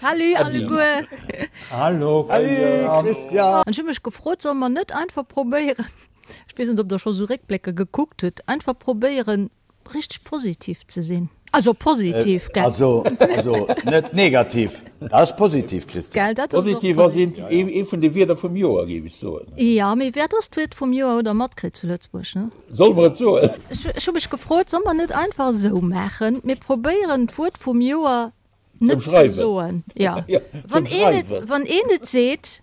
Salut alleguer. Hallo Christian. An ech hu mech gefrot, solle mer net einfach probéieren, ech weess net, ob Der scho sou Réckblécker gekuckt hutt, einfach probéieren, richteg positiv ze sinn? Also positiv, gell? Also, also net negativ. Dat ass positiv, Christian. Gell, dat ass och Positiv ass eent, ee vun de Wierder vum Joer, géif ech soen. Jo, mee wat ass d'Wuert vum Joer? Hutt Der matkritt zu Lëtzebuerg, ne? Solle mer et soen? Ech hu mech gefrot, solle mer net einfach esou maachen, mir probéieren d'Wuert vum Joer net ze soen. Jo, wann een et, wann een et seet.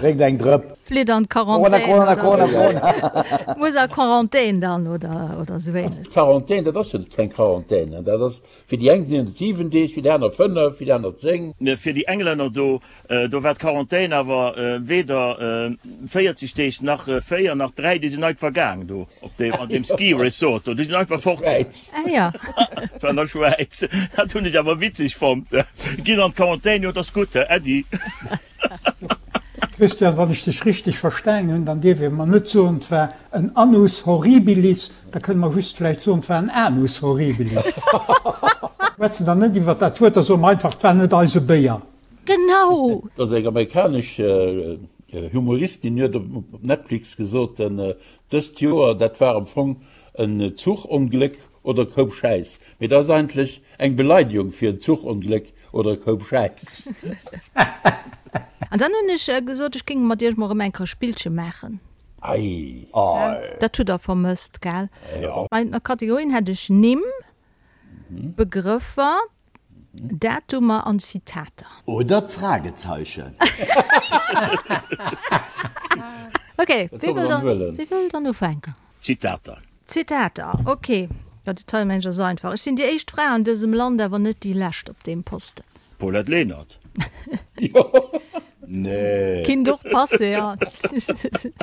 Drénkt eng Drëpp. Flitt an d'Quarantän. Corona, Corona, Corona, Corona. Muss a Quarantän dann oder, oder esou ähnlech. D'Quarantän, dat ass jo keng Quarantän, dat ass, fir déi eng sinn et 7 Deeg, fir déi aner 5, fir déi aner 10. Fir déi Englänner do Do war d'Quarantän awer weder 40 Deeg nach 4 nach 3, déi sinn einfach gaang do op deem, an deem Ski Resort do, déi sinn einfach fort. Schwäiz. Ah ja. War an der Schwäiz. Dat hunn ech awer witzeg fonnt. Ginn an d'Quarantän, jo, dat ass gutt, Äddi. Christian, wann ech dech richteg verstaangen hunn, dann dierf ee mer net soen, 't war en Annus horribilis, da kënne mer just vläicht soen, 't war en Anus horribilis. Schwätzen dann net iwwert dat Wuert, da soe mer einfach, 't war net eise Béier. Genau! Et ass eng amerikanesch Humoristin, huet op Netflix gesot, dëst Joer, dat war am Fong en Zuchongléck oder e Koup Schäiss. Mee dat ass eigentlech eng Beleidigung fir en Zuchongléck oder e Koup Schäiss. An dann hunn ech gesot, ech géing mat iech mol erëm eng Kéier e Spillche maachen. Ei! Dat hutt der vermësst, gell? Bei der Kategorien hätt ech Nimm, Begrëffer, Datumer an Zitater. Oder d'Fragezeichen. Ok, wie wëll dann, wie wëll dann ufänken? Zitater. Zitater, ok. Jo, de Teilmensch ass einfach. Ech sinn déi éischt Fra an dësem Land, awer net déi lescht op deem Posten. Paulette Lenert. Nee. Kinnt och passe, jo.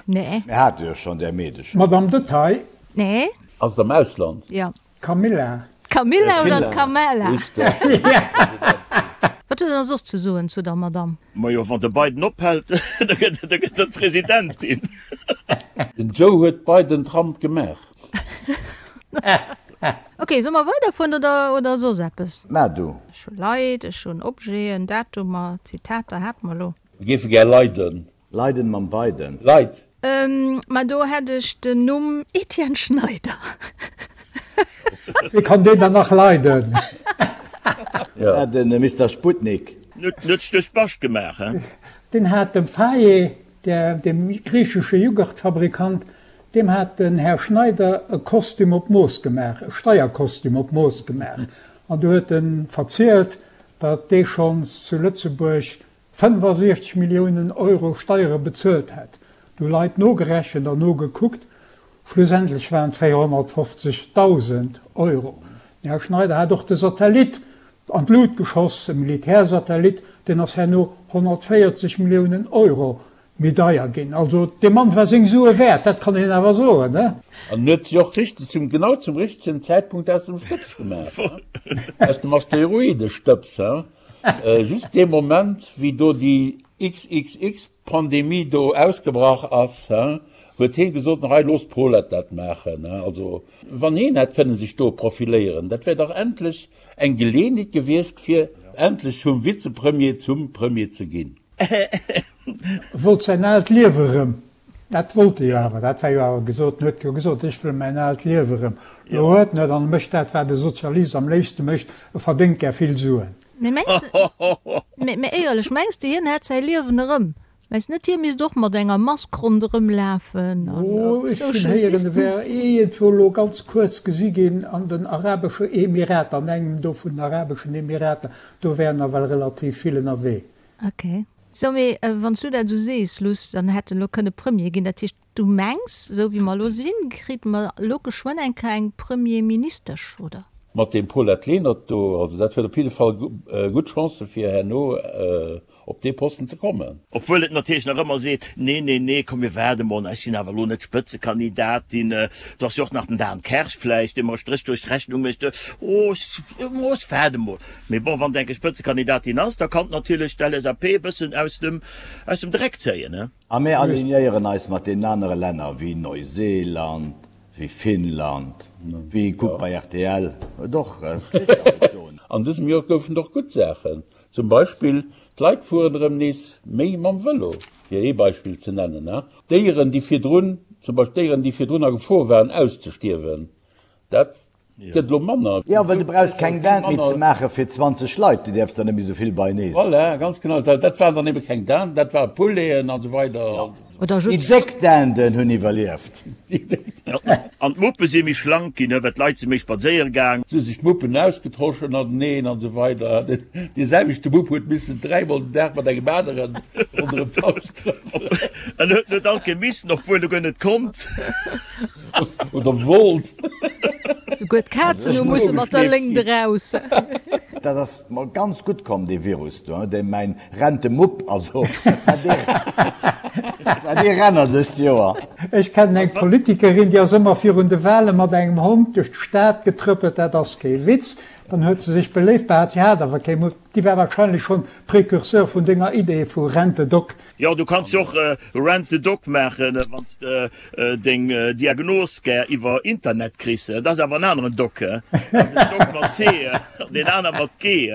Nee. Mir hate jo schonn där Meedecher. Madame Detail. Nee. Ass et am Ausland? Jo. D'Camilla. D'Camilla oder d'Camella? Wat huet Der soss ze soen zu der Madame? Majo, wann de Biden ophält, da gëtt e Presidentin. Den Joe huet Biden Trump gemaach. Ok, solle mer weiderfueren oder, oder soss eppes? Maach du. Ech hu Leit, ech hunn Objeten, Datumer, Zitater hate mer elo. Mir géife gär leiden. Leiden mam Biden. Leit. Ma do hätt ech den Numm Etienne Schneider. Wéi kann deen dann nach leiden? Ja, den Mister Sputnik. Net duerch Bascht gemaach, he? Deen hat dem Faye, dem griichesche Jughurtfabrikant, deem hat den Här Schneider e Kostüm op Mooss gemaach, e Steierkostüm op Mooss gemaach. An du huet en verzielt, datt dee schonns zu Lëtzebuerg 65 Milliounen Euro Steiere bezuelt hätt. Du Leit nogerechent an nogekuckt, schlussendlech waren et 450.000 Euro. Den Här Schneider hat och de Satellit an d'Lut geschoss, e Militärsatellit, deen ass herno 140 Milliounen Euro méi deier ginn. Also dee Mann war seng Sue wäert, dat kann een awer soen, ne? An huet sech och richteg zum, genau zum richtegen Zäitpunkt aus dem Stëbs gemaach, aus dem Asteroidestëbs, he? Just dee Moment, wéi do déi XXX-Pandemie do ausgebrach ass, huet heen gesot, Hei, loosst d'Paulette dat maachen. Also, wann heen hätt kënnen sech do profiléieren, dat wär dach endlech eng Geleeënheet gewiescht, fir endlech vum Vizepremier zum Premier ze ginn. E wollt säin aalt Liewe rëm. Dat wollt e jo awer, dat war jo awer gesot. En huet jo gesot, ech wëll mäin aalt Liewe erëm. Elo huet en et an e mécht dat, wat e Sozialist am léifste mécht, e verdéngt gär vill Suen. Mee mengs de, mee éierlech, mengs de hien hätt säi Liewen erëm? Mengs de net hie misst och mat enger Mask ronderëm lafen an Oh, ech hunn social héieren, e wär distance? iergendwou elo ganz kuerz gesi ginn an den Arabesche Emirater, an engem do vun den Arabeschen Emirater, do wär nawell relativ vill ënnerwee. Ok. Sou, mee wann s du dat esou sees, Luss, dann hätt en elo kënne Premier ginn. Dat heescht, du mengs, esou wéi mer elo sinn, kritt mer elo geschwënn eng Kéier eng Premierministesch, oder? Mat deem Paulette Lenert do, also dat huet op jidde Fall gutt Chancë fir herno op dee Posten ze kommen. Obwuel et natierlech nach ëmmer seet, Nee, nee, nee, komm mir waarde mol, ech sinn awer elo net d'Spëtzekandidatin, do ass jo och nach den Dan Kersch vläicht, dee mer e Stréch duerch d'Rechnung mécht, oh, ech waarde mol. Mee bon, wann et eng Spëtzekandidatin ass, da kann natierlech d'LSAP e bëssen aus dem, aus dem Dreck zéien, ne? A mir alignéieren eis mat deenen anere Länner wéi Neuseeland, wéi Finnland, wéi, kuck bei rtl, et och, s Christian wollt soen. An dësem Joer goufen et och gutt Saachen. Zum Beispill, d'Leit fueren erëm nees méi mam Vëlo, fir ee Beispill ze nennen. Déieren, déi virdrun, zum Beispill Déieren, déi virdrun a Gefor waren auszestierwen, dat gëtt elo manner. Jo, well du brauchs keng Dinde méi ze maache fir 20 Leit, du däerfs der net méi esou vill beienee sinn. Voilà, ganz genau. Dat waren dann ebe keng Dinde, dat ware Pouleten an esou weider. Oder Déi just. déck Dinden hunn iwwerlieft. An d'Muppe si méi schlank ginn, well d'Leit si méi spadséiere gaang. Si hu sech d'Muppen ausgetosch ënnerteneen an esou weider. Dee selwechte Mupp huet missen dräimol den Dag mat engem aneren ronderëm d'Haus trëppelen. En huet net all Kéier missen, obwuel e guer net konnt. Oder wollt. Souguer d'Kazen hu musse mat der Léngt eraus. Dat ass mer ganz gutt komm, dee Virus do, dee mäin Rentemupp, also dat war dee Renner dëst Joer. Ech kennen eng Politikerin, déi ass ëmmer virun de Wale mat engem Hond duerch d'Stad getrëppelt, dat ass kee Witz. Dann huet se sech beléift behaat, si hat awer kee Mupp. Déi war wahrscheinlech schonn Précurseur vun denger Idee vu Rent-a-Dog. Jo, du kanns jo och Rent the Dog maachen, wann s de deng Diagnos gär iwwer Internet kriss. Dat ass awer en aneren Doc. Dat ass en Doc mat C an deen aner mat G.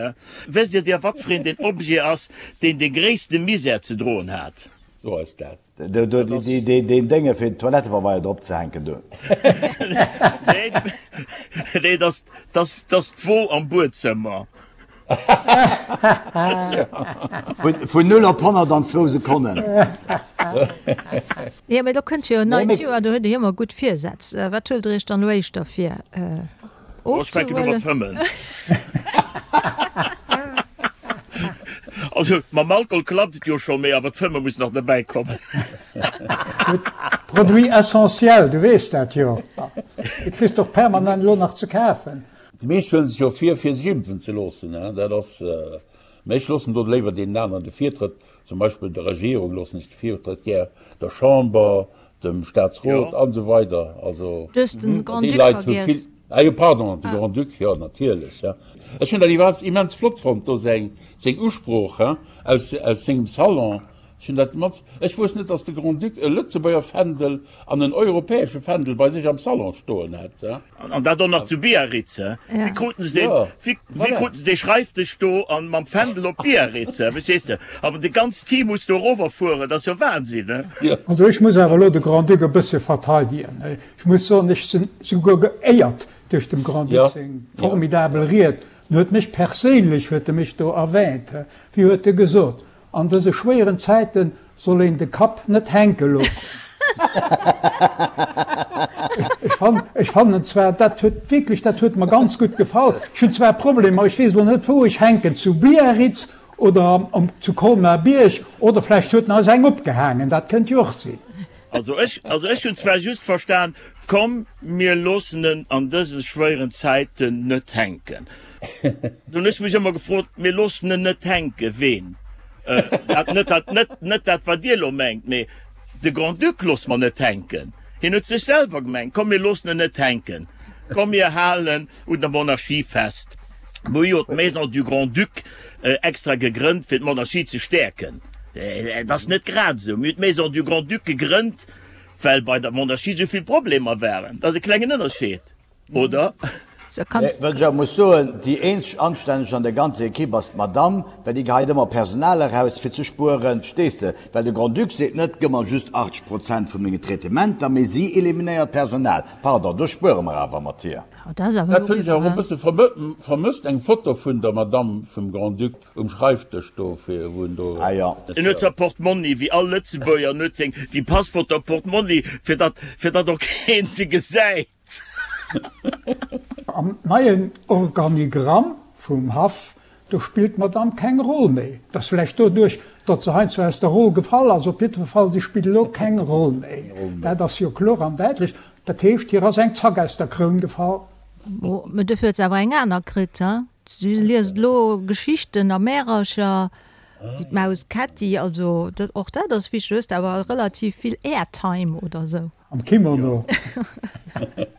Wësst Dir dir, wat fir een den Objet ass, deen de gréisste Misär ze droen hat? So ass dat. Deen Dénge fir den Toilettepabeier drop ze hänken do. Nee, dat ass d'Wo am Buedzëmmer. Vun 0 op 100 an zwou Sekonnen. Jo, mee do kënnt jo en neit Joer, do huet Dir jo ëmmer gutt Virsätz. Wat huelt Der Iech dann elo éischter vir, ofzehuelen? Ech fänken u mat fëmmen. Also mam Alkohol klappt et jo scho, mee awer d'Fëmme muss nach derbäi kommen. Produit essentiel, du weess dat jo. Du kriss och permanent elo nach ze kafen. Déi meescht huelen sech jo vir, fir sech impfen ze loossen. Dat ass, mä ech loossen do léiwer deenen aneren de Virtrëtt, zum Beispill der Regierung loossen ech de Virtrëtt gär, der Chamber, dem Staatsrot an esou weider. Also Du hues den déi Grand-Duc Leit hu vill. vergiess. Ah jo, pardon, de Grand-Duc, jo natierlech, ja. Ech hunn dat iwwerhaapt immens flott fonnt do, seng, seng Usprooch, hein, aus, aus sengem Salon. Ech hunn dat immens, ech wousst net, datt de Grand-Duc e Lëtzebuerger Fändel an en europäesche Fändel bei sech am Salon stoen hat, hein. An dat och nach zu Biarritz, he? Wéi kruten se deen, wéi, wéi kruten se dee Schreifdësch do an mam Fändel op Biarritz, he? Verstees de? Awer de ganzt Team muss do erower fueren, dat ass jo Wahnsinn, he? Also ech muss awer elo de Grand-Duc e bësse verteidegen. Ech muss soen, ech sinn souguer geéiert duerch dem Grand-Duc seng formidabel Ried. En huet mech perséinlech, huet e mech do erwähnt. Wéi huet e gesot? An dëse schwéieren Zäiten soll een de Kapp net hänke loossen. Ech fannen zwar, dat huet wierklech, dat huet mer ganz gutt gefall. Ech hunn zwar Problemer, ech weess elo net wou ech hänken, zu Biarritz oder zu Colmar-Bierg oder vläicht huet en eis eng opgehaangen, dat kënnt jo och sinn. Also ech, also ech hunn zwar just verstan, komm mir loossen en an dëse schwéieren Zäiten net hänken. Do hunn ech mech ëmmer gefrot, mir loossen en net hänken, ween? Dat, net dat, net, net dat wat Dir elo mengt, mee de Grand-Duc loosse mer net hänken. Hien huet sech selwer gemengt, komm mir loossen en net hänken, komm mir halen un der Monarchie fest. Mir hu jo d'Maison du Grand-Duc extra gegrënnt, fir d'Monarchie ze stäerken. Et ass net grad esou. Mir hunn d'Maison du Grand-Duc gegrënnt, well bei der Monarchie esou vill Problemer waren. Dat ass e klengen Ënnerscheed, oder? Well ech awer muss soen, déi eenzeg Anstänneg an der ganzer Ekipp ass d'Madamm, well déi geheit ëmmer Personal eraus, fir ze spueren, verstees de? Well de Grand-Duc seet net, gëmm mer just 80 Prozent vu mengen Traitementer, mee si eliminéiert Personal. Pardon, do spuere mer awer mat hir. Dat hunn ech awer och e bësse vermësst, eng Foto vun der Madamm vum Grand-Duc um Schreifdësch do, fir wou en do. Ah jo. En huet säi Portmonni, wéi all Lëtzebuerger, en huet seng, déi Passfoto am Portmonni, fir datt, fir datt och keen se gesäit. Am neien Organigramm vum Haff Do spillt d'Madame keng Roll méi. Et ass vläicht doduerch, datt se heiansdo aus der Roll gefall ass. Op jiddwer Fall, si spillt elo keng Roll méi. Dat ass jo kloer an däitlech. Dat heescht, hir ass eng Zack aus der Kroun gefall. Mä dofir huet se awer eng aner kritt, he? Si liest elo Geschichten a Märercher, wéi d'Maus Kätti. Also och dat ass wichteg. Du hues awer relativ vill Airtime oder esou. Am Kimono.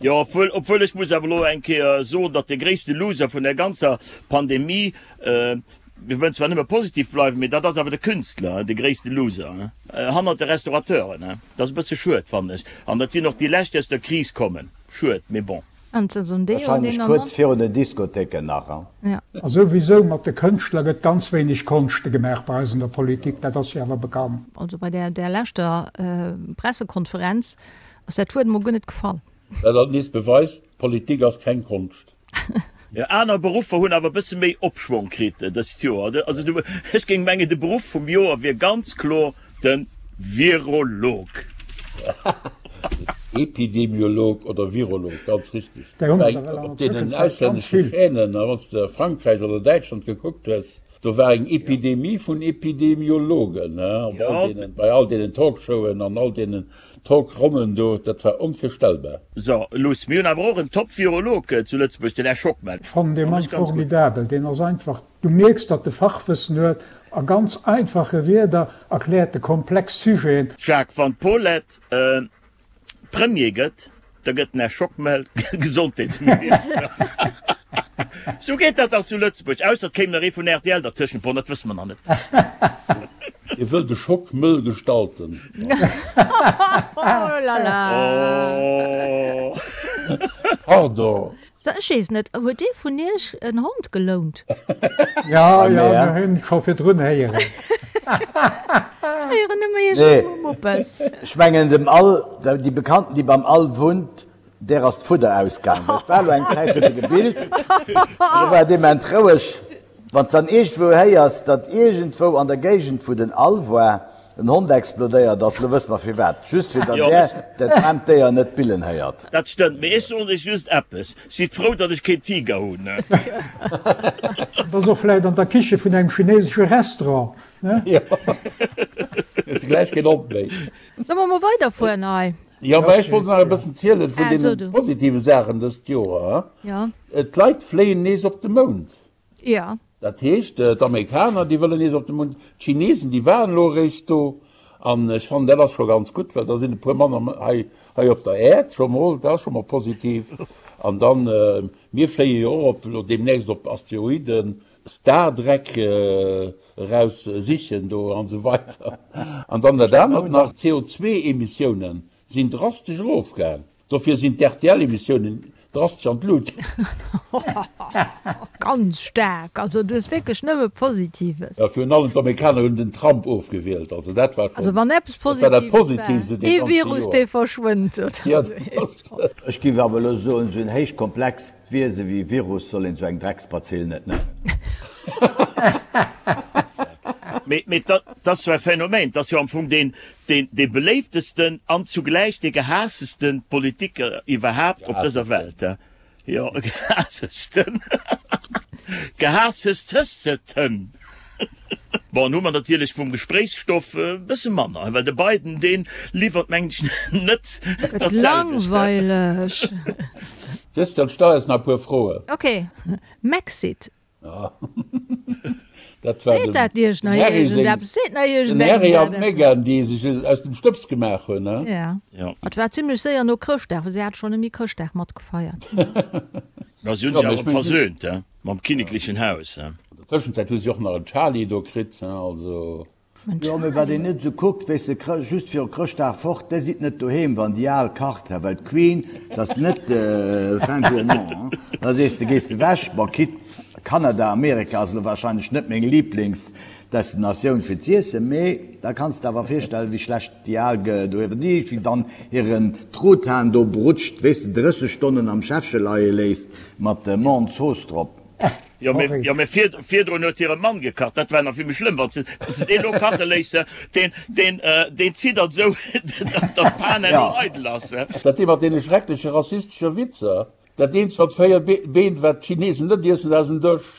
Jo, obwuel, obwuel ech muss awer elo eng Kéier soen, datt de gréisste Loser vun der ganzer Pandemie, mir wëllen zwar nëmme positiv bleiwen, mee dat ass awer de Künstler, de gréisste Loser, hannert de Restaurateuren. Dat ass e bësse schued, fannen ech. An dat sinn och déi lescht, déi aus der Kris kommen. Schued, mee bon. An Saison D hunn Wahrscheinlech deen kuerz virun den Diskothéiken nach, hein? Ja. A souwisou, mat de Kënschtler gëtt ganz wéineg Konschte gemaach bei eis an der Politik, dat ass jo awer bekannt. Also bei där där leschter Pressekonferenz ass dat Wuert emol guer net gefall. Wat alt nees beweist, Politik ass keng Konscht. Jo, aner Beruffer hunn awer e bësse méi Opschwong kritt dëst Joer. Also du, ech géing mengen, de Beruff vum Joer wier ganz kloer de Virolog. Epidemiolog oder Virolog, ganz richteg. Där hunn der ewell an Op der deenen Tëschenzäit ganz auslännesche vill. Chaînen, wann s de Frankräich oder Däitschland gekuckt hues, do war eng Epidemie vun Epidemiologen, op all deenen, bei all deenen Talkshowen an all deenen Talkronnen do, dat war onvirstellbar. So, Luss, mir hunn awer och en Top-Virolog zu Lëtzebuerg, den Här Schockmel. Ech fannen dee Mann formidabel. Deen ass einfach, du mierks, datt e Fachwëssen huet, a ganz einfache Wierder erkläert e komplex Sujeten. Jacques, wann d'Paulette Premier gëtt, da gëtt den Här Schockmel Gesondheetsminister. Sou geet dat dach zu Lëtzebuerg, ausser et kéim nach ee vun rtl dertëschent, bon, dat wësse mer nach net. Hie wëll de Schock mëll gestalten. Oh la la! Oh. Pardon. So, ech weess net, huet ee vun iech en Hond gelount? Ja, ja, mir hunn scho virdrun héieren. Ech héieren nëmme iergendwou Muppes. Ech mengen dem Al, déi Bekannten déi beim Al wunnt, Där ass d'Fudder ausgaang, well et war elo eng Zäit, huet e gebillt, an elo war et ement roueg. Wann s dann iergendwou héiers, datt iergendwou an der Géigend, wou den All war, en Hond explodéiert ass, elo wësse mer firwat, just fir datt där dat aarmt Déier net billen héiert. Dat stëmmt, mee ech soen iech just eppes, Sidd frou, datt ech keen Tiger hunn. Et ass och vläicht an der Kiche vun engem chinesesche Restaurant, ne? Jo, hues de gläich keen Hond méi. Solle mer mol weiderfueren hei? Jo, mä ech wollt nach e bëssen zielen vun deene positive Saachen dëst Joer. D'Leit fléien nees op de Mound. Jo. Dat heescht, d'Amerikaner, déi wëllen nees op de Mound. D'Chinesen, déi waren elo eréischt do. An ech fannen, dat ass scho ganz gutt, well da sinn e puer manner hei, hei op der Äerd scho mol. Dat ass scho mol positiv. An dann, mir fléie jo och op, elo deemnächst op Asteroiden, Stardreck eraus sichen do an esou weider. An dann dat anert nach, d'CO2-Emissiounen sinn drastesch erofgaang. Dofir sinn d'RTL-Emissiounen drastesch an d'Lut gaang. Ganz staark! Also du hues wierklech nëmme Positives. Jo, virun allem d'Amerikaner hunn den Trump ofgewielt, also dat war Also wann eppes dat war dat Positives Positivste war, dee ee ganze Virus Joer. dee verschwënnt oder Ja, esou dat ass. Ech géif awer elo soen, esou en héich komplext D'Wiese wéi Virus soll een sou eng Drecksbazill net nennen. Mee, mee dat ass jo e Phänomen. Dat ass jo am Fong deen, deen, dee beléiftesten an zugläich dee gehaasstesten Politiker iwwerhaapt op dëser Welt. Jo, gehaasstesten. Gehaasstesteten. Bon, hu mer natierlech vum Gespréichsstoff e bësse manner, well de Biden, dee liwwert, mengen ech, net Gëtt dat selwecht. langweileg. Christian, stell eis nach e puer Froen. Ok, Mexit. Dat war Seet dem dat Iech nach Harry seng, iergendeppes? Seet nach den iergendengem Harry an dat eppes? d'Meghan, déi sech aus dem Stëbs gemaach hunn, ne? Ja. Ja. Et war zimlech séier no Chrëschtdag, well si hat schonn ëm Chrëschtdag matgefeiert. Ma si hunn Ja, sech mee awer ech mengen, si. versöhnt, he, mam kinneklechen Haus, he. An der Tëschenzäit hu si och nach en Charlie do kritt, also. En Jo, mee wat Charlie? een net esou kuckt, weess de, just viru Chrëschtdag fort, déi sidd net doheem, wann déi al kacht, he, well d'Queen, dat ass net fin gourmand, hein. Da sees de, gees de wech, bon, quitte Kanada, Amerika ass elo wahrscheinlech net meng Lieblingsdestinatioun fir z'iessen, mee da kanns de awer virstellen, wéi schlecht déi al doheem, déi wéi dann hiren Truthahn do brutscht, weess de, 30 Stonnen am Schäffche leie léisst mat Menthe-Zooss drop. Jo, mee, jo, mee vir, virdrun huet hire Mann gekacht, dat war nach vill méi schlëmm, wann se, wann se deen elo kache léisst, deen, deen, deen ziddert esou, datt d'Pan herno eidel ass. Dat dee mat deene schreckleche rassistesche Witzer? Dat eenzegt mat 4 Been, wat d'Chinesen net iessen, dat ass en Dësch.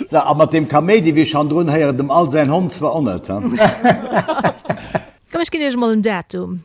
Sou, a mat deem Kaméidi wéi ech handrun héieren, dem Al säin Hond zwar och net, he? Komm, ech ginn iech emol en Datum.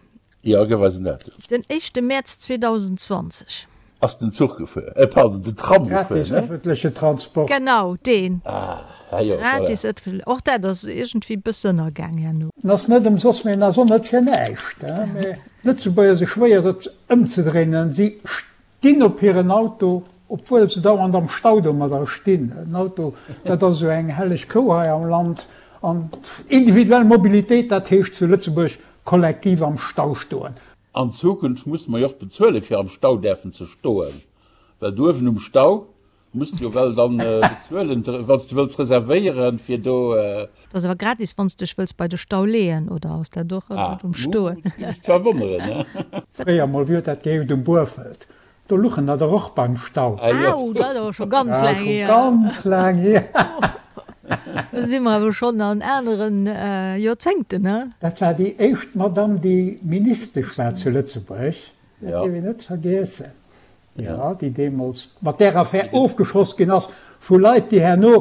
Jo, gëff eis en Datum. Den éischte Mäerz 2020. Ass den Zuch gefuer, äh pardon, den Tram gefuer, Gratis ne? ëffentleche Transport. Genau, deen. Ah, ah jo, voilà. Gratis ëffentle, och dat ass iergendwéi bësse ënnergaang herno. En ass net ëmsoss, mee en ass och net fir näischt. Mee d'Lëtzebuerger si schwéier et ëmzedréinen. Si stinn op hiren Auto, obwuel se dauernd am Stau domadder stinn. En Auto, dat ass esou eng helleg Kou hei am Land. An individuell Mobilitéit, dat heescht zu Lëtzebuerg. kollektiv am Stau stoen. An Zukunft musse mer jo och bezuelen, fir am Stau däerfen ze stoen, well do uewen um Stau muss de jo well dann bezuelen, wann s de wëlls reservéieren, fir do. Dat ass awer gratis, wann s dech wëlls bei de Stau leeën, oder ass dat och ëmmer um Stoen? Ah, géif mech zwar wonneren, ne? Fréier mol, wéi huet dat geheescht, um Buerfelt, do luchen der der och beim Stau. Au, dat ass awer scho ganz laang hier. Scho ganz laang hier. Do si mer awer schonn an aneren Joerzéngten, ne? Dat war déi éischt Madamm, déi Ministesch war zu Lëtzebuerg, dat dierf een net vergiessen. Jo, déi deemools mat där Affär ofgeschoss ginn ass vu Leit, déi herno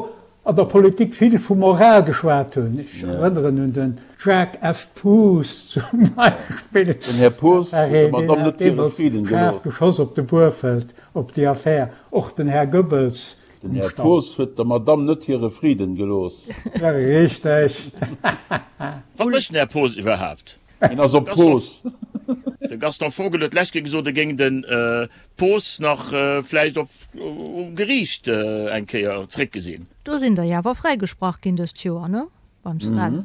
an der Politik vill vu Moral geschwat hunn. Ech erënneren un de Jacques F. Poos zum Beispill. Den Här Poos huet der Madamm net hire Friden gelooss. Schaarf geschoss op de Buerfelt op déi Affär. Och den Här Goebbels Den Här Poos huet der Madamm net hire Friden gelooss. Richteg. Wat mécht den Här Poos iwwerhaapt? Hien ass op Poos. De Gaston Vogel huet d'lescht Kéier gesot, e géing de Poos nach vläicht op um Geriicht eng Kéier zréckgesinn. Do sinn der jo awer fräigesprach ginn dëst Joer, ne? Beim Srel.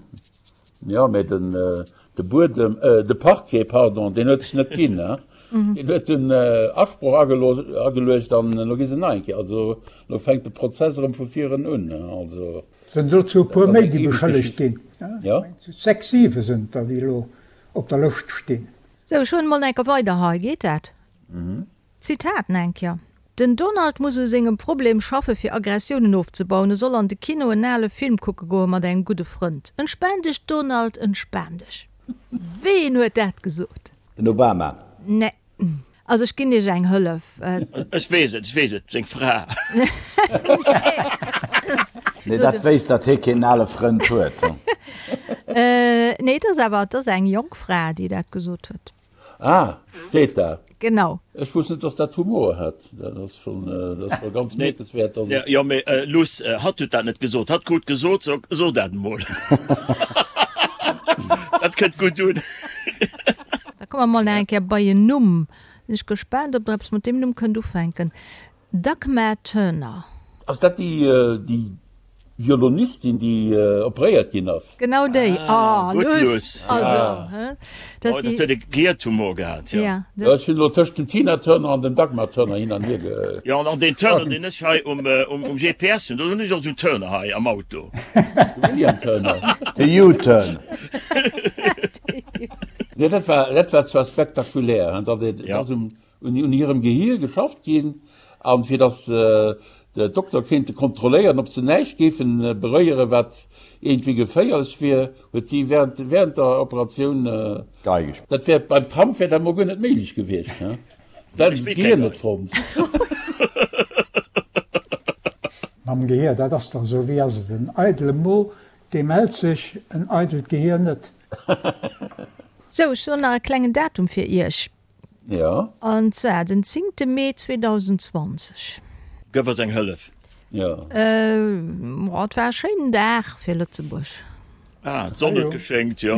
Jo, mä den de Buedem, de Parquet, pardon, deen huet sech net ginn, ne? Deen huet den Asproch ageluecht an elo gi se nach eng Kéier, also elo fänkt de Prozess erëm vu viren un, ne? Also. Sinn dozou e puer méi, déi beschëllegt ginn. Sechs, siwe sinn der, déi elo op der Lëscht stinn. Sou, ech huelen mol enker weider hei, geet dat? Zitat enker, Den Donald muss u sengem Problem schaffe fir Aggressiounen ofzebauen. E soll an de Kino en ale Film kucke goe mat engem gudde Frënd. Entspan dech Donald, entspan dech. Ween huet dat gesot? Den Obama. Nee. Also ech ginn iech eng Hëllef. Ech weess et, ech weess et, seng Fra. Nee, dat wéisst, datt hie keen ale Frënd huet. Nee, et ass awer, et ass eng jonk Fra, déi dat gesot huet. Ah, d'Greta. Genau. Ech wosst net, datt dat Humor hat. Dat ass schonn, dat ass scho ganz mierkenswäert, datt et. Jo, mee Luss, hatt huet dat net gesot. Hatt krut gesot, so, so dat emol. Dat kënnt gutt un. Da komme mer mol nach eng Kéier bei en Numm. Sinn ech gespaant, ob der eppes mat deem Numm kënnt ufänken. Dagmar Turner. Ass dat déi, déi Violonistin, déi operéiert ginn ass? Genau déi. Ah, Oh, gutt, Luss! Luss. Also, hä? Dat Oh, ass dat déi. huet e Gehirtumor gehat, jo. Ja, dat. Ech hunn elo tëscht dem Tina Turner an dem Dagmar Turner hin an hier ge. Jo, an deen Turner, deen ech hei um, um GPS hunn, do hunn ech och esou en Turner hei am Auto. De William Turner. De U-Turn. Nee, dat war, dat war zwar spektakulär, hein, datt et Ja. ass um, un, un hirem Gehier geschafft ginn, an fir datt de Dokter kéinte kontrolléieren, ob se näischt géifen beréieren, wat iergendwéi geféierlech wier, huet si während, während der Operatioun, Geige gespillt. Dat wär beim Trump wär dat mol guer net méiglech gewiescht, hein. Dat Ech hätt spillt d'Gehier keng net Gei. fonnt. Mam Gehier, dat ass dach esou, wéi ass et, en eidele Mo, dee mellt sech, en eidelt Gehier net. Sou, ech hunn nach e klengen Datum fir Iech. Jo. An zwar den zéngte Mee 2020. Gëff eis eng Hëllef. Jo. Äh, et war e schéinen Dag fir Lëtzebuerg. Ah, d'Sonn huet geschéngt, jo.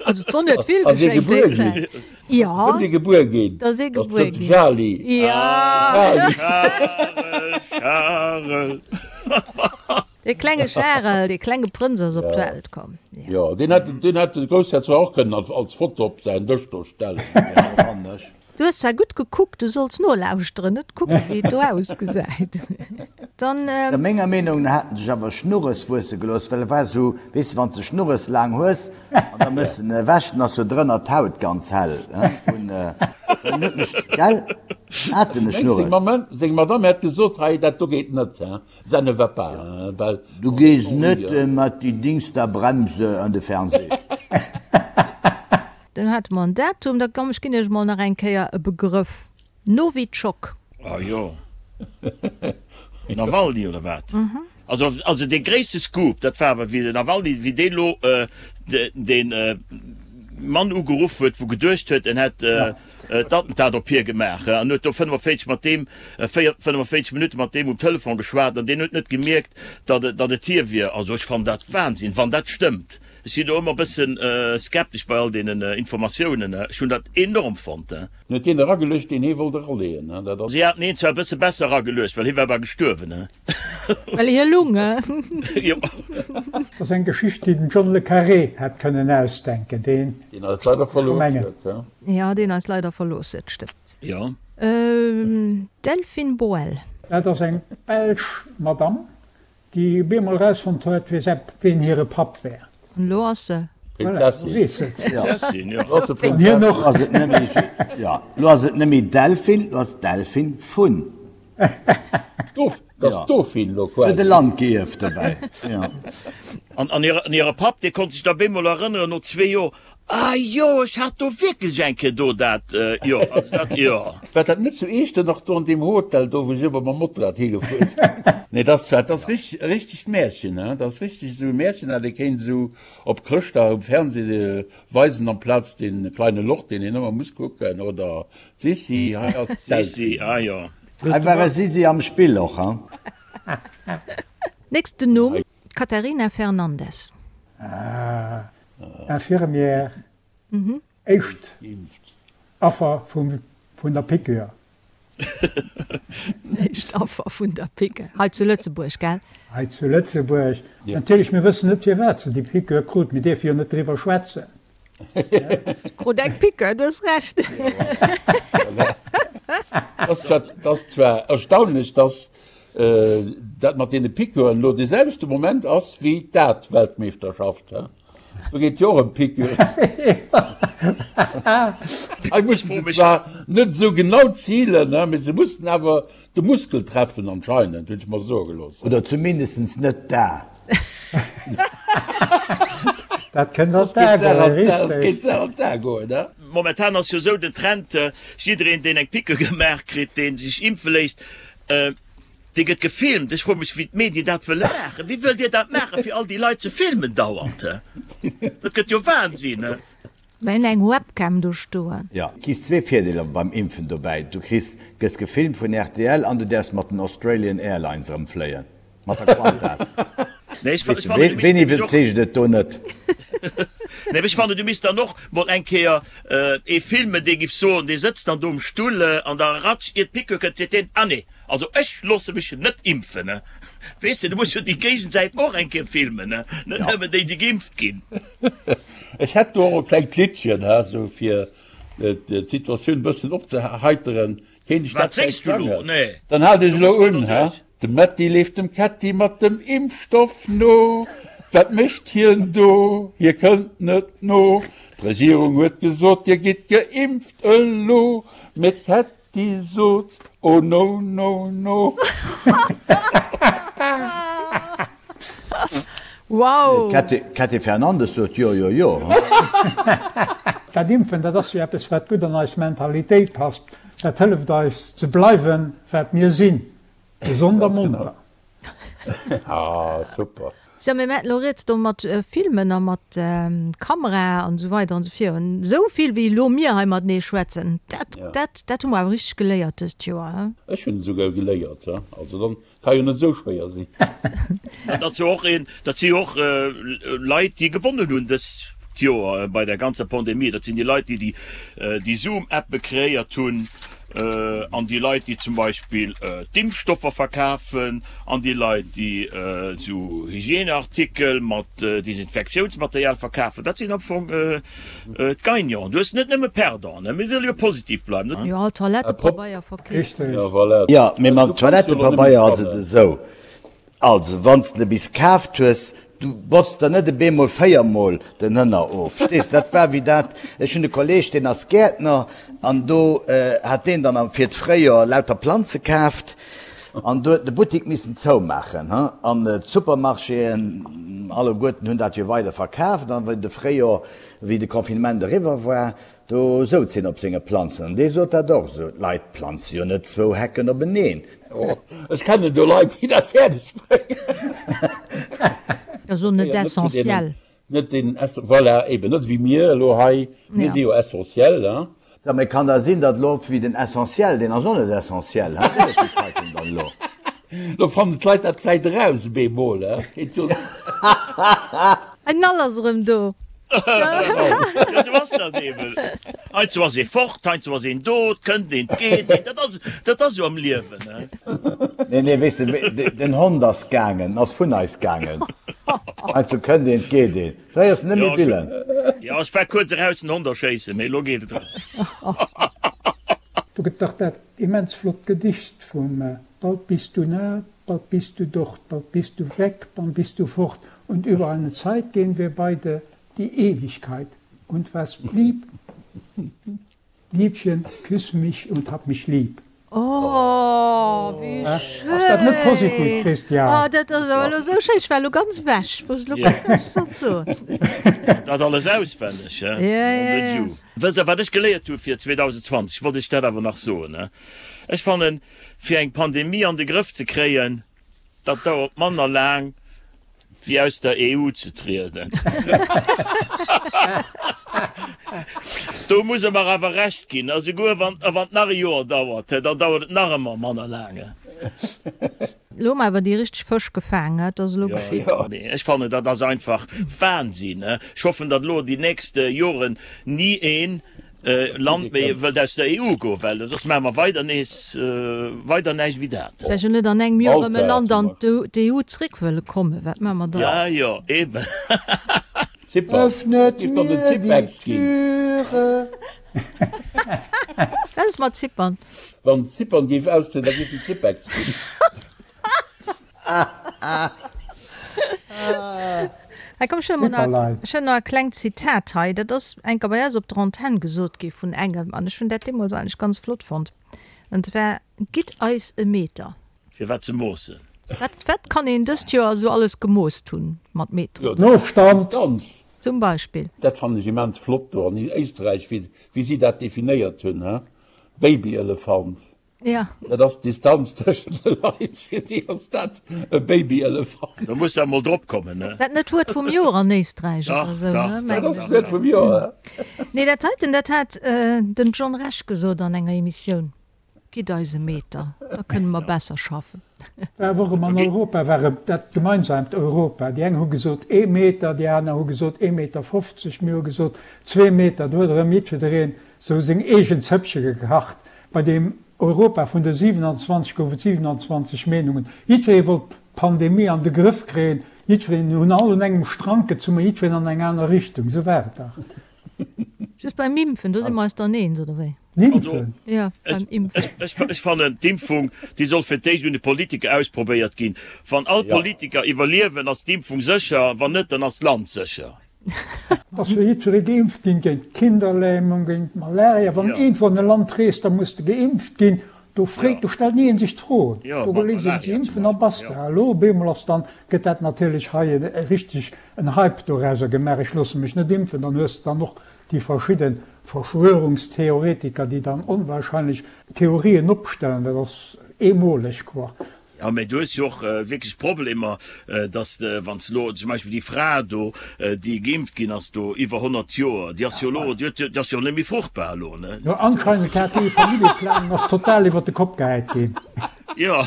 Also d'Sonn huet vill Ass ee geschéngt gebuer déi ginn? Zäit. Jo. Ass ee gebuer ginn? Et ass ee gebuer ginn. Charly. Jo. Charel, Charel. Dee klenge Charel, dee klenge Prënz ass op d'Welt komm. Jo, deen hätt, deen hätt de Groussherzog och kënnen als, als Foto op säin Dësch do stellen. Du hues zwar gutt gekuckt, du solls nolauschteren, net kucken, wéi et do ausgesäit. Dann. No menger Meenung no hat en sech awer Schnurres wuesse gelooss, well e war sou, weess de, wann s de Schnurres laang hues an da méchs en ewech, dann ass jo drënner d'Haut ganz hell vun, well en huet mech, gell, hat en e Schnurres? Seng Madame hätt gesot, hei, dat do geet net, hein. Ça ne va pas, hein, well. Du gees net mat déi Dings da Bremse an de Fernseh. Dann hate mer en Datum. Da komm, ech ginn Iech mol nach eng Kéier e Begrëff, Nowitschok. Ah jo, Nawalny oder wat? Also, also dee gréisste Scoop, dat war awer wéi den Nawalny, wéi dee lo dee Mann ugeruff huet, wou geduecht huet, en hätt d'Attentat op hie gemaach an huet do 45 mat deem, 45 Minutte mat deem um Telefon geschwat an deen huet net gemierkt, datt et, datt et hie wier. Also ech fannen dat Wahnsinn, wann dat stëmmt. Ech sinn do ëmmer e bëssen skeptesch bei all deenen Informatiounen. Ech hunn dat enorm fonnt. En huet deen erageluecht, deen hie wollt eraleeën. Dat ass. Si haten hien zwar e bësse besser erageluecht, well hie war bal gestuerwen. Well hie lung, he? Jo. Dat ass eng Geschicht, déi den John le Carré hätt kënnen ausdenken, deen. Deen eis leider verlooss huet, he? Jo, deen eis leider verlooss huet, stëmmt. Jo. Delphine Boël. Dat ass eng belsch Madame, déi op eemol erausfonnt huet, wie säi, wien hire Papp wär. An elo ass se. Voilà, Prinzessin. elo weess se et. Prinzessin, jo. Elo ass se An hien Prinzessin. och. Elo ass et net méi, jo, elo ass et net méi Delphine, elo ass et Delphine vun. Dof, dat ass Ja. Dauphine elo Huet e quasi. Land gierft dobäi, jo. An, an hire Papp, dee konnt sech da bemol erënneren, no zwee Joer, Ah jo, ech hat do wierklech eng Kéier do dat, jo, also dat, jo. War dat net zu Eechternoch do an deem Hotel do, wou ech ëmmer mam Motorrad higefuer sinn? Nee, dat ass zwar, dat ass richteg, e richtegt Märchen, he, dat ass richteg esou e Märchen, dat ee kéint esou op Chrëschtdag um Fernseh weisen amplaz dee Kleine Loch, deen een ëmmer muss kucken, oder d'Sissi, hei ass Sissi, d'Delphine. ah jo. Hei war e Sisi am Spill och, he? Nächsten Numm, Catarina Fernandes. Ah, Infirmière, éischt Affer vun der Piqûre. Éischt Affer vun der Piqûre, hei zu Lëtzebuerg, gell? Hei zu Lëtzebuerg. Natierlech, mir wëssen net, firwat se déi Piqûre krut. Mir dierfe jo net driwwer schwätzen. Krut eng Piqûre, du hues Recht. Dat ass zwar erstaunlech, dass dat mat deene Piqûren elo dee selwechte Moment ass wéi d'Dart-Weltmeeschterschaft. Do geet jo och ëm Piqûren. Hei mussen se zwar net esou genau zilen, mee se mussen awer de Muskel treffen anscheinend, hunn ech mer soe gelooss. Oder zumindestens net d'A. Dat kënnt an d'A goen, richteg. Dat kéint an d'A goen, ne? Momentan ass jo esou den Trend, jiddereen deen eng Piqûre gemaach kritt, dee sech impfe léisst, Dee gëtt gefilmt. Ech froe mech, wéi d'Medien dat wëlle maachen. Wéi wëllt Dir dat maachen, fir all déi Leit ze filmen dauernd? Dat gëtt jo Wahnsinn. Mir hunn eng Webcam do stoen. Jo, kriss zwee Virdeeler beim Impfen dobäi, du kriss, gëss gefilmt vun rtl an du däerfs mat den Australian Airlines erëm fléien, mat der Qantas. Nee, ech Weess de, fannen, du misst ween nämlech och. iwwerzeegt et do net? Nee, ech fannen, du misst dann och mol eng Kéier ee filmen, dee giff soen, dee sëtzt dann do um Stull an da ratsch, ier d'Piqûre kënnt, seet deen, Ah nee, also ech loosse mech net impfen. Weess de, du muss jo déi Géigensäit och eng Kéier filmen, net nëmmen déi, déi geimpft ginn. Ech hätt do och e klengt Liddchen, he, sou fir d'Situatioun e bëssen opzeheiteren. Kéint ech Wat dat vläicht séngs du elo? sangen? Nee. Dann haalt iech Do elo muss mer un, do he. duerch. De Metti leeft dem Ketti mat dem Impfstoff no. Wat mécht hien do? Hie kënnt net no. D'Regierung huet gesot, Dir gitt geimpft elo. Mee d'Ketti sot, Oh no, no, no. Wow! D'Kätty Fernandes sot jo, jo, jo. Dat Impfen, dat ass jo eppes, wat gutt an eis Mentalitéit passt. Dat hëlleft eis ze bleiwen, wat mir sinn, gesond a monter. Ah, super. Sou, mir maachen elo rieds do mat Filmen a mat Kamera an esou weider an esou virun. Esou vill wéi elo mir hei matenee schwätzen, dat, dat, dat hu mer awer richteg geléiert dëst Joer, he? Ech hunn esouguer geléiert, he. Also dann Ka jo net esou schwéier sinn. Dat ass jo och een, dat si jo och Leit, déi gewonnen hunn dëst Joer bei der ganzer Pandemie. Dat sinn déi Leit, déi déi Zoom-Appe kreéiert hunn an déi Leit, déi zum Beispill d'Impfstoffer verkafen an déi Leit, déi esou Hygieneartikel mat Desinfektiounsmaterial verkafen. Dat sinn am Fong D'Gagnanten, du hues net nëmme Perdanten, mir wëlle jo positiv bleiwen. Jo, all Toilettepabeier verkeeft. Jo, mee mam Toilettepabeier ass et esou, also wann s de bis kaaft hues, du botz der net e beemol véiermol den Hënner of, verstees? Dat war wéi dat, ech hunn e Kolleeg, deen ass Gäertner an do hat deen dann fir d'Fréijoer lauter Planze kaaft An do huet de Buttik missen zoumaachen, he? An d'Supermarchéen alleguerten hunn dat jo weider verkaaft. An wéi de Fréijor, wéi de Confinement eriwwer war, do souz hien op senge Planzen. An dee sot dat och esou, D'Leit planze jo net zwou Hecken openeen. Oh, ech kennen do Leit, déi dat fäerdeg bréngen. Dat ass och net essentiell. Net den Essen, voilà, eben net wéi mir elo hei, mir si jo essentiel, hein. Sag, mee kann da sinn, datt elo wéi den Essentiel, deen ass och net essentiel, hein, wéi ass déi Zeitung dann elo? Lo fannen d'Leit dat vläit eraus op eemol, hein, kéint jo sinn. En Nall ass erëm do. Jo, sou ass dat eben. Heiansdo ass ee fort, heiansdo ass een do, et kënnt een, et geet een. Dat ass, dat ass esou am Liewen, he. Nee, nee, weess de, den Hond ass gaangen, en ass vun eis gaangen. Heiansdo kënnt een, et geet een. Du héiers en net méi billen. Jo, ech war kuerz eraus den Hond erschéissen, mee elo geet et erëm. Do gëtt dach dat immens flott Gedicht vum Bald bist du nah, bald bist du dort, bald bist du weg, dann bist du fort und über eine Zeit gehen wir beide die Ewigkeit und was blieb, Liebchen, küss mich und hab mich lieb. Oh, wéi schéin! Ass dat net positiv, Christian? Oh, dat ass awer elo sou schéin. Ech war elo ganz ewech, wou ech elo guer näischt sollt soen. Dat alles auswenneg, he? Mon de Dieu. Wësst Der, wat ech geléiert hu fir 2020? Wollt ech dat awer nach soen, he? Ech fannen, Fir eng Pandemie an de Grëff ze kréien, dat dauert manner laang wéi aus der EU ze trieden. Do muss e mer awer Recht ginn, a souguer wann et nach e Joer dauert, dann dauert et nach ëmmer manner laang. Elo hu mer awer déi richteg Fësch gefaang, dat ass elo geschitt. Mee ech fannen, dat ass einfach Wahnsinn. Ech hoffen, datt elo déi nächst Joren ni een Land méi wëllt aus der EU goen, well soss maache mer weider nees weider näischt wéi dat. Vläicht jo net an engem Joer erëm e Land an d'EU zréck wëlle kommen, wat maache mer dann? Ja, jo, eben. Öffnet mir die Türe. Wat ass mat Zypern? Wann Zypern géif austrieden, da géif den Zypex ginn. Hei komm, ech hunn emol nach, ech hunn nach e klengt Zitat hei. Dat ass eng Kéier bei eis op der Antenn gesot gi vun engem an ech hunn dat deemools eigentlech ganz flott fonnt. An zwar, Gitt eis e Meter. Fir wat ze moossen? Wat, wat kann een dëst Joer esou alles gemoost hunn mat Meteren? Den Ofstand. Zum Beispill. Dat fannen ech immens flott do an Éisträich, wéi, wéi si dat definéiert hunn, he? Babyelefant. Ja. Dat ass d'Distanz tëschent de Leit, fir déi ass dat e Babyelefant. Do muss de emol drop kommen, ne? Ass dat net d'Wuert vum Joer an Éisträich oder esou, ne? Dach, dach. Dat ass d'Wuert vum Joer. Nee, dat heiten, dat hat den John Rech gesot an enger Emissioun, Gitt eis e Meter, da kënne mer besser schaffen. War awer och ëm an Europa war et dat gemeinsaamt Europa. Déi eng hu gesot ee Meter, déi aner hu gesot ee Meter 50, mir hu gesot zwee Meter. Do huet erëm jiddwereen sou seng eegen Zëppche gekacht. Bei deem Europa vun de 27 gouf et 27 Meenungen. Jiddweree wollt d'Pandemie an de Grëff kréien. Jiddwereen hunn all un engem Strank gezunn, ma jiddwereen an eng aner Richtung. Esou war et dach. Just beim Impfen, do si mer eis dann eens, oder wéi? Impfen? Jo, beim Impfen. Ech fannen, d'Impfung, déi soll fir d'éischt un de Politiker ausprobéiert ginn. Wann all d'Politiker iwwerliewen, ass d'Impfung sécher. Wann net, dann ass d'Land sécher. Ass jo jiddweree geimpft ginn géint d'Kinderlähmung, géint d'Malaria. Wann iergendwou an e Land reest, da muss de geimpft ginn. Do freet, do stellt ni een sech d'Fro. Do léisst een sech impfen a basta. Elo op eemol ass dann, gëtt dat natierlech hei e richteg en Hype dorauser gemaach, ech loosse mech net impfen. Dann hues de dann och déi verschidde Verschwörungstheoretiker, déi dann onwahrscheinlech Theorien opstellen. Dat ass eemoleg, quoi. Jo, mä du hues jo och wierklech Problemer, dass de, wann s de elo zum Beispill déi Fra do, déi geimpft ginn ass do, iwwer 100 Joer, déi ass jo elo, déi huet jo, déi ass jo net méi fruchtbar elo, ne? Jo, anscheinend hat déi Familljeplanung ass total iwwer de Kopp gehäit ginn. Jo.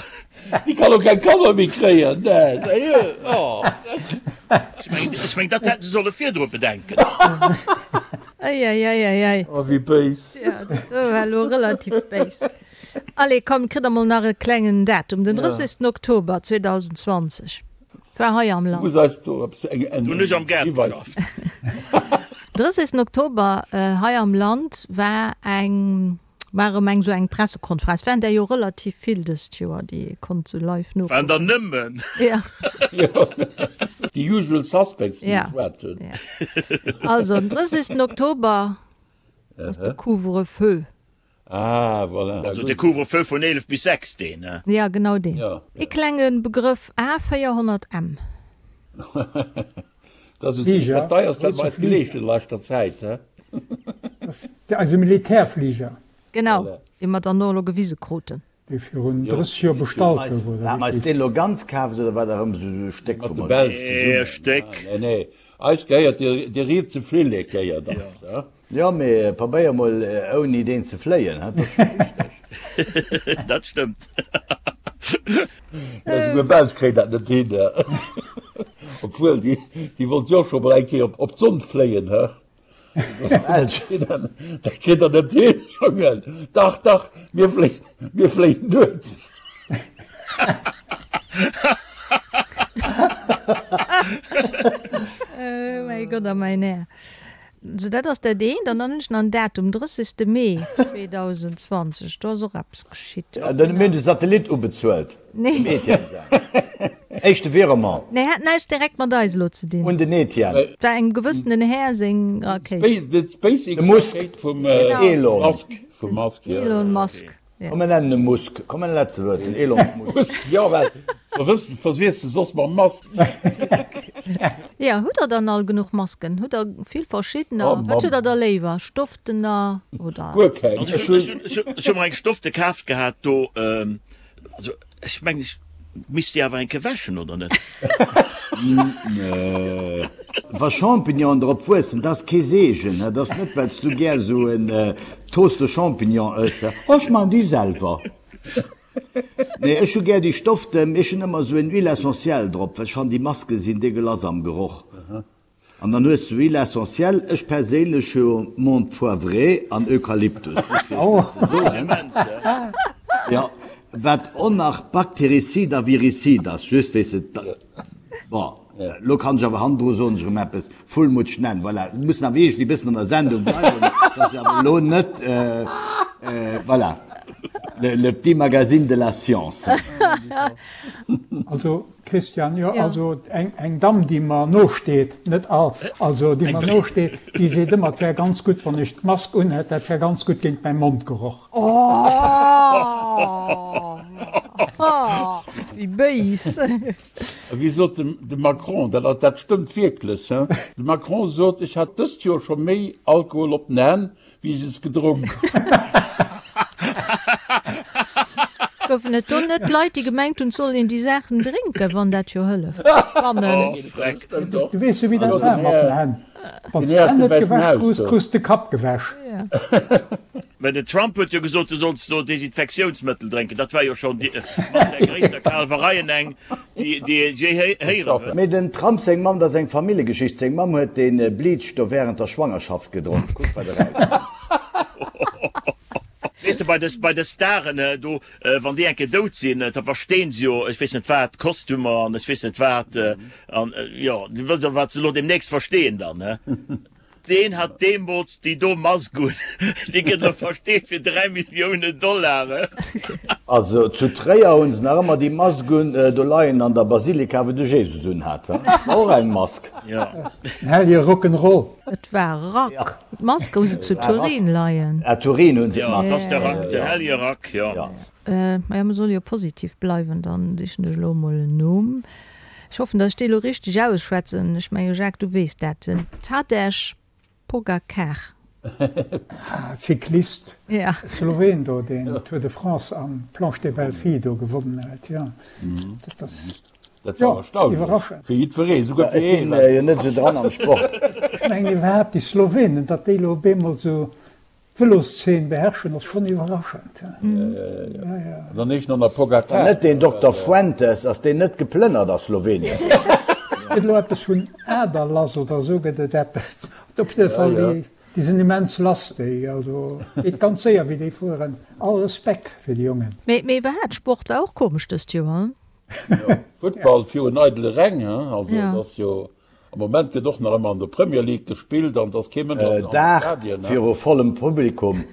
Déi kann och keng Kanner méi kréien, ne? Sérieux, oh. Ech mengen, ech mengen, dat hätte se solle virdru bedenken. Eieieiei. Oh, wéi béis. Jo, dat do war elo relativ béis. Allez, komm, kritt der mol nach e klengen Datum, den 30. Oktober 2020 war hei am Land. Muss eis do eppes eng eng Hunn ech am Gaart Hiweis. geschafft. 30. Oktober hei am Land war eng war erëm eng sou eng Pressekonferenz. Waren der jo relativ vill dëst Joer, déi ee konnt sou live Waren der nokucken. nëmmen. Ja. Jo, déi usual suspects, déi Ja. geschwat hunn. Ja. Also den 30. Oktober ass de Couvre-feu. Ah, voilà. Also de Couvre-feu vun 11 bis 6, deen, ne? Ja, genau deen. Ja. Ee klenge Begrëff, A400M. Dat ass esou zimmlech dat deierst, wat mer eis geleescht hunn a leschter Zäit, he? Dat ass eise Militärfliger. Genau, dee mer dann och elo gewise kruten. Dee virun 30 Joer bestallt gouf, oder Hat mer eis deen elo ganz kaaft oder war dat erëm esou e Stéck Mat vum de Modell? Belsch Ee zesummen. Stéck. Nee, nee, eis gehéiert dee rietse Flillek gehéiert eis, he? Jo, mee probéier mol ouni deen ze fléien, dat ass scho wichteg. Dat stëmmt. Jo, souguer Belsch kréien dat net hin. Obwuel, déi, déi wollt jo och scho mol eng Kéier op d'Sonn fléien, he? Dat kritt der net hin, Jongen. Dach, dach, mir fléien, mir fléien nuets. Oh mäi Gott a mäin Här. Sou, dat ass dat eent. An dann hunn ech nach en Datum, 30. Mee 2020, do ass och eppes geschitt. Dann hu mir de Satellit ubezuelt, dem Etienne säin éischte Virement. Nee, hat näischt direkt mat eis elo ze dinn. Un den Etienne. Et war engem gewëssenen Här seng Rakéit. De Musk, den Elon. Den Elon Musk. Komm mir nennen e Musk. Komm en Letzebuerg, den Elon Musk. Musk, jo, well verwëssen, verwiesst se soss mam Mask. Jo, hutt der dann all genuch Masken? Hutt der vill verschiddener? Wat hutt der da léiwer, Stofftener oder? Guer keng. Also ech hunn, ech hu mer eng Stoffte kaaft gehat do, also ech mengen ech misst déi awer eng Kéier wäschen, oder net? Wa Champignonen drop wuessen, dat ass kee Seegen. Dat ass net, well s du gär esou en Toast de Champignon ëss. Oh, ech maachen déi selwer. Nee, ech hu gär déi Stoffte, mee ech hunn ëmmer esou en Huile essentielle drop, well ech fannen, déi Maske sinn degueulass am Geroch. An dann hues du Huile essentielle, ech perséinlech hu Menthe poivrée an Eukalyptus, just fir iech dat ze soen. Jo, wat och nach baktericide a viricide ass, just weess de, bon, elo kann ech awer hannendru soen ech erëm eppes, Fullmutsch nennen, voilà, mir mussen awer iergendwéi e bëssen an der Sendung bleiwen, dass ech awer elo net, voilà, le petit magazine de la science. Also Christian, Jo, also eng Damm, déi mer nosteet, net all, also déi mer nosteet, déi seet ëmmer, et wär ganz gutt, wann ech d'Mask unhätt, dat wär ganz gutt géint mäi Mondgeroch. Oh, wéi béis! A wéi sot de Macron, dat, dat stëmmt wierklech, hein, de Macron sot, ech hat dëst Joer scho méi Alkohol op den Hänn, Wéi ech es gedronk hunn. Goufen et do net Leit, déi gemengt hunn, et soll een déi Saachen drénken, wann dat jo hëlleft? Du weess jo, wéi dat war mat den Hänn. Wann s d'Hänn net gewäsch krus, krus de Kapp gewäsch. Mä den Trump huet jo gesot, du solls do Desinfektiounsmëttel drénken. Dat war jo schonn mat där gréisster Kalwereien eng. Déi déi ech jé héieren hunn. Mee dem Trump seng Mamm, dat ass eng Familljegeschicht, seng Mamm huet dee Bleach do während der Schwangerschaft gedronk. Kuck wat erauskoum. Weess de, bei de bei de Staren do, wann déi eng Kéier dout sinn, da versteen se jo ech weess net wat, Kostümer an ech weess net wat an jo, du wëss jo wat se elo deemnächst versteen dann, he. Deen hat deemools déi do Mask un, déi gëtt elo versteet fir 3 Milliounen Dollar. Also zu Tréier hunn se nach ëmmer déi Mask un do leien an der Basilika wou de Jesus un hat. Dat war och eng Mask. Jo. Den hellege Rock'n'Roll. Et war Rack. D'Mask hu se zu Turin leien. Ah Turin hunn se d'Mask. Jo, et ass de Rack, den hellege Rack, jo. Maja, mer solle jo positiv bleiwen, dann sichen ech elo emol en Numm. Ech hoffen, datt ech dee lo richteg ausschwätzen. Ech menge Jacques, du weess dat, den Tadej Pogacar. Ah, Cyclist, Ja. Sloween do, deen d'Tour de France an d'Planche des Belles Filles do gewonnen huet, jo. Dat ass, Dat jo, war erstaunlech. iwwerraschend. Fir jiddweree, souguer Ech fir sinn hien. jo net esou dran am Sport. Ech mengen iwwerhaapt déi Slowenen, datt déi lo op eemol esou D'Veloszeen beherrschen ass schonn iwwerraschend. An dann eescht nach Pogacar. Ass dat net deen Dokter Fuentes? Ass deen net geplënnert a Slowenien? Gëtt elo eppes vun Aderlass oder esou gëtt et eppes. Op jidde Fall, déi sinn immens lass déi, also geet ganz séier wéi déi fueren. All Respekt fir déi Jongen. Mee iwwerhaapt, Sport war och komesch dëst Joer, hein? Futtball virun eidele Räng, hein, also et ass jo Am Moment gëtt och nach ëmmer an der Premier League gespillt an et ass kee Mënsch an de Dag Stadien. viru vollem Publikum.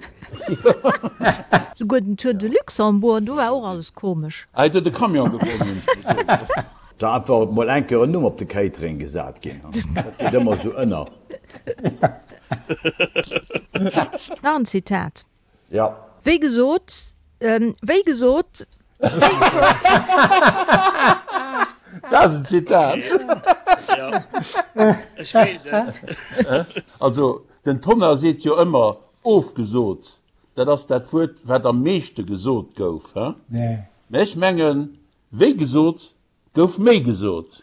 Souguer den Tour de Luxembourg, do war och alles komesch. Ah, et huet e Camion gewonnen, hunn ech gesot. Da einfach mol eng Kéier en Numm op de Catering gesat ginn. Dat geet ëmmer esou ënner. Nach en Zitat. Ja. Wéi gesot, wéi gesot, wéi gesot. Dat ass en Zitat. Jo, ech weess et. Also, den Tonnar seet jo ëmmer ofgesot. Dat ass dat Wuert, wat am meeschte gesot gouf. Mä ech mengen, wéi gesot, Gouf méi gesot.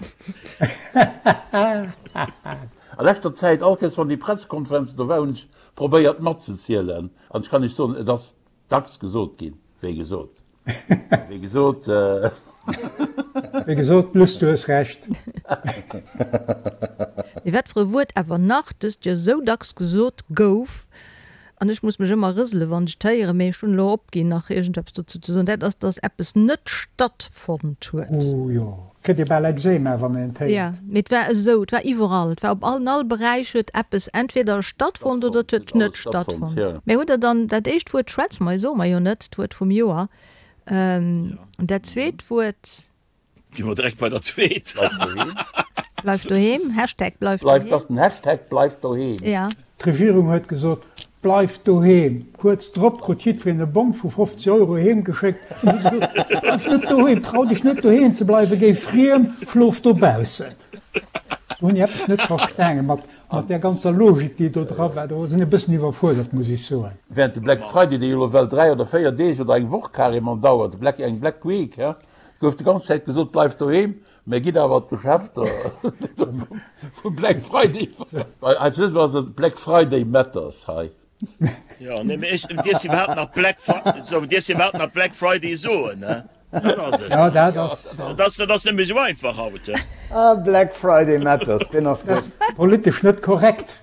A leschter Zäit, all Kéiers wann déi Pressekonferenzen do war, hunn ech probéiert matzezielen. An ech kann Iech soen, et ass dacks gesot ginn, wéi gesot. Wéi gesot. Wéi gesot, Luss, du hues Recht. Mee wat fir e Wuert awer nach dëst Joer sou dacks gesot gouf, an ech muss mech ëmmer rësele wann ech et héieren, mee ech hunn elo opginn nach iergendeppes dozou ze soen, dat ass, dass eppes net stattfonnt huet. Oh jo, kritt ee bal Ekzema wann een et héiert. Jo, mee et war esou, et war iwwerall, et war op all, an all Beräich huet eppes entweder stattfonnt oder et huet net stattfonnt. Mee hutt Der dann dat éischt Wuert schwätze mer, soe mer jo net, d'Wuert vum Joer, an dat zweet Wuert? Gi mer direkt bei der zweet. Bleif doheem. Bleif doheem, Hashtag bleif doheem. Bleif, dat ass den Hashtag bleif doheem. Ja. D'Regierung huet gesot, Bleift doheem! Kuerz drop krut jiddwereen e Bong vu 50 Euro heem geschéckt an hu se gesot, Bleif net doheem, trau dech net doheem ze bleiwen, géi friem, schlof dobaussen. Do hunn ech eppes net verstaangen mat mat där ganzer Logik, déi do dra war. Do sinn e bëssen iwwerfuerdert, muss ech soen. Während de Black Friday, dee jo elo well 3 oder 4 Deeg oder eng Woch carrément dauert, de Black, eng Black Week, he, Gouf de ganz Zäit gesot, bleift doheem, mä gitt awer an d'Geschäfter vum Black Friday. Hei zu Lëtzebuerg ass et Black Friday matters hei. Jo, nee, mee ech, dierfs iwwerhaapt nach Black Fri, sou, dierfs iwwerhaapt nach Black Friday soen, ne? Dat ass et. Jo, dat ass. Dat ass, dat ass net méi sou einfach haut, he? Ah, Black Friday matters, deen ass gutt. Politesch net korrekt.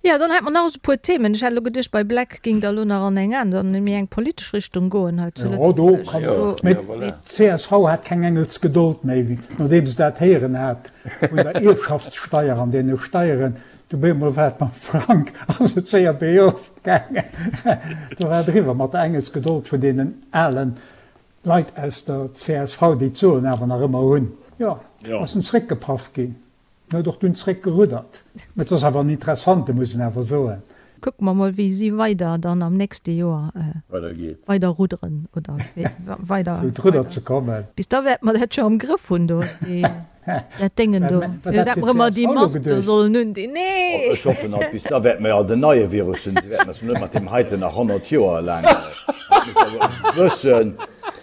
Jo, dann hätt mer nach esou e puer Themen. Ech hat elo geduecht, bei Black géing Der elo nach an eng aner, an méi eng politesch Richtung goen hei zu Jo, do Lëtzebuerg. kann een. Mee Mee. D'CSV hat keng Engelsgedold méi, wéi nodeem se dat héieren hat vun der Ierfschaftssteier an deene Steieren. Du op eemol war et mam Frank ass et séier beriof gaangen. Do war et eriwwer mat der Engelsgedold vun deenen ale Leit aus der csv, déi d'Soen awer nach ëmmer hunn. Jo, ass en zréckgepaff ginn. En huet och dunn zréck geruddert. Mä et ass awer en interessante, muss een awer soen. Kucke mer mol wéi si weider dann am nächste Joer weider rudderen oder weider. Fir un d'Rudder ze kommen. Bis da wäerte mer dat jo am Grëff hunn do, déi, dat Déngen do. Fir dat mer ëmmer déi Mask do sollen hunn, déi, nee! Ech hoffen alt, bis da wäerte mer jo alt en neie Virus hunn. Si wäerten eis net mat deem heiten nach 100 Joer laang, dat muss awer e bëssen,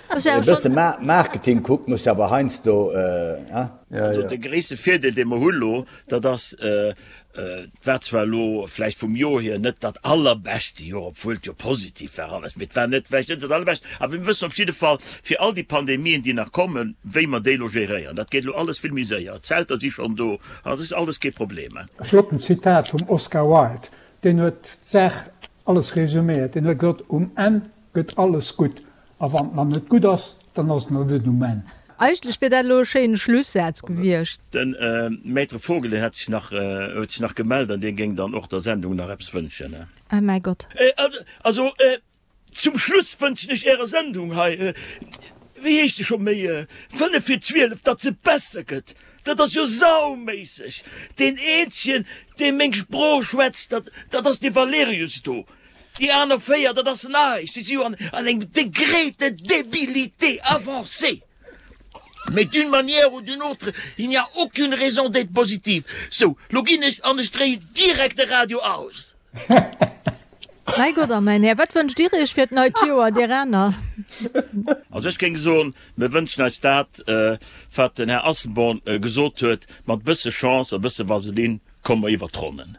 e bësse Marketing kuckt, muss awer heiansdo, hein? Also de gréisste Virdeel, dee mer hu lo, dat ass, et war zwar elo vläicht vum Joer hier net dat allerbeschte Joer, obwuel et jo positiv war alles, mee et war net vläicht net dat allerbescht, awer mir wëssen op jidde Fall fir all déi Pandemien, déi nach kommen, wéi mer déi elo geréieren. Dat geet elo alles vill méi séier, d'Zelter si schonn do, dat ass alles kee Problem. E flotten Zitat vum Oscar Wilde, deen huet d'Saach alles resuméiert, deen huet gesot, Um Enn gëtt alles gutt, A wann et nach net gutt ass, dann ass et nach net um Enn. Eigentlech wier dat elo e schéine Schlussaz gewiescht. Den Maître Vogel, deen hat sech nach, huet sech nach gemellt an dee géing dann och der Sendung nach eppes wënschen. Ah mäi Gott. Also, zum Schluss wënschen ech Ärer Sendung hei, wéi heescht se scho méi, 5 vir 12, datt se besser gëtt. Dat ass jo sauméisseg! Deen eenzegen, dee meng Sprooch schwätzt, dat, dat ass dee Valerius do. Déi aner 4, dat ass näischt, déi si jo an engem Degré de débilité avancé. Mais d'une manière ou d'une autre, il n'y a aucune raison d'être positive. Sou, lo ginn ech an ech dréien direkt de Radio aus. Mäi Gott a mäin Här, wat wënscht Dir Iech fir d'neit Joer, dir aner? Also ech géing soen, mir wënschen eis dat, wat den Här Asselborn gesot huet, mat bësse Chance a bësse Vaseline komme mer iwwert d'Ronnen.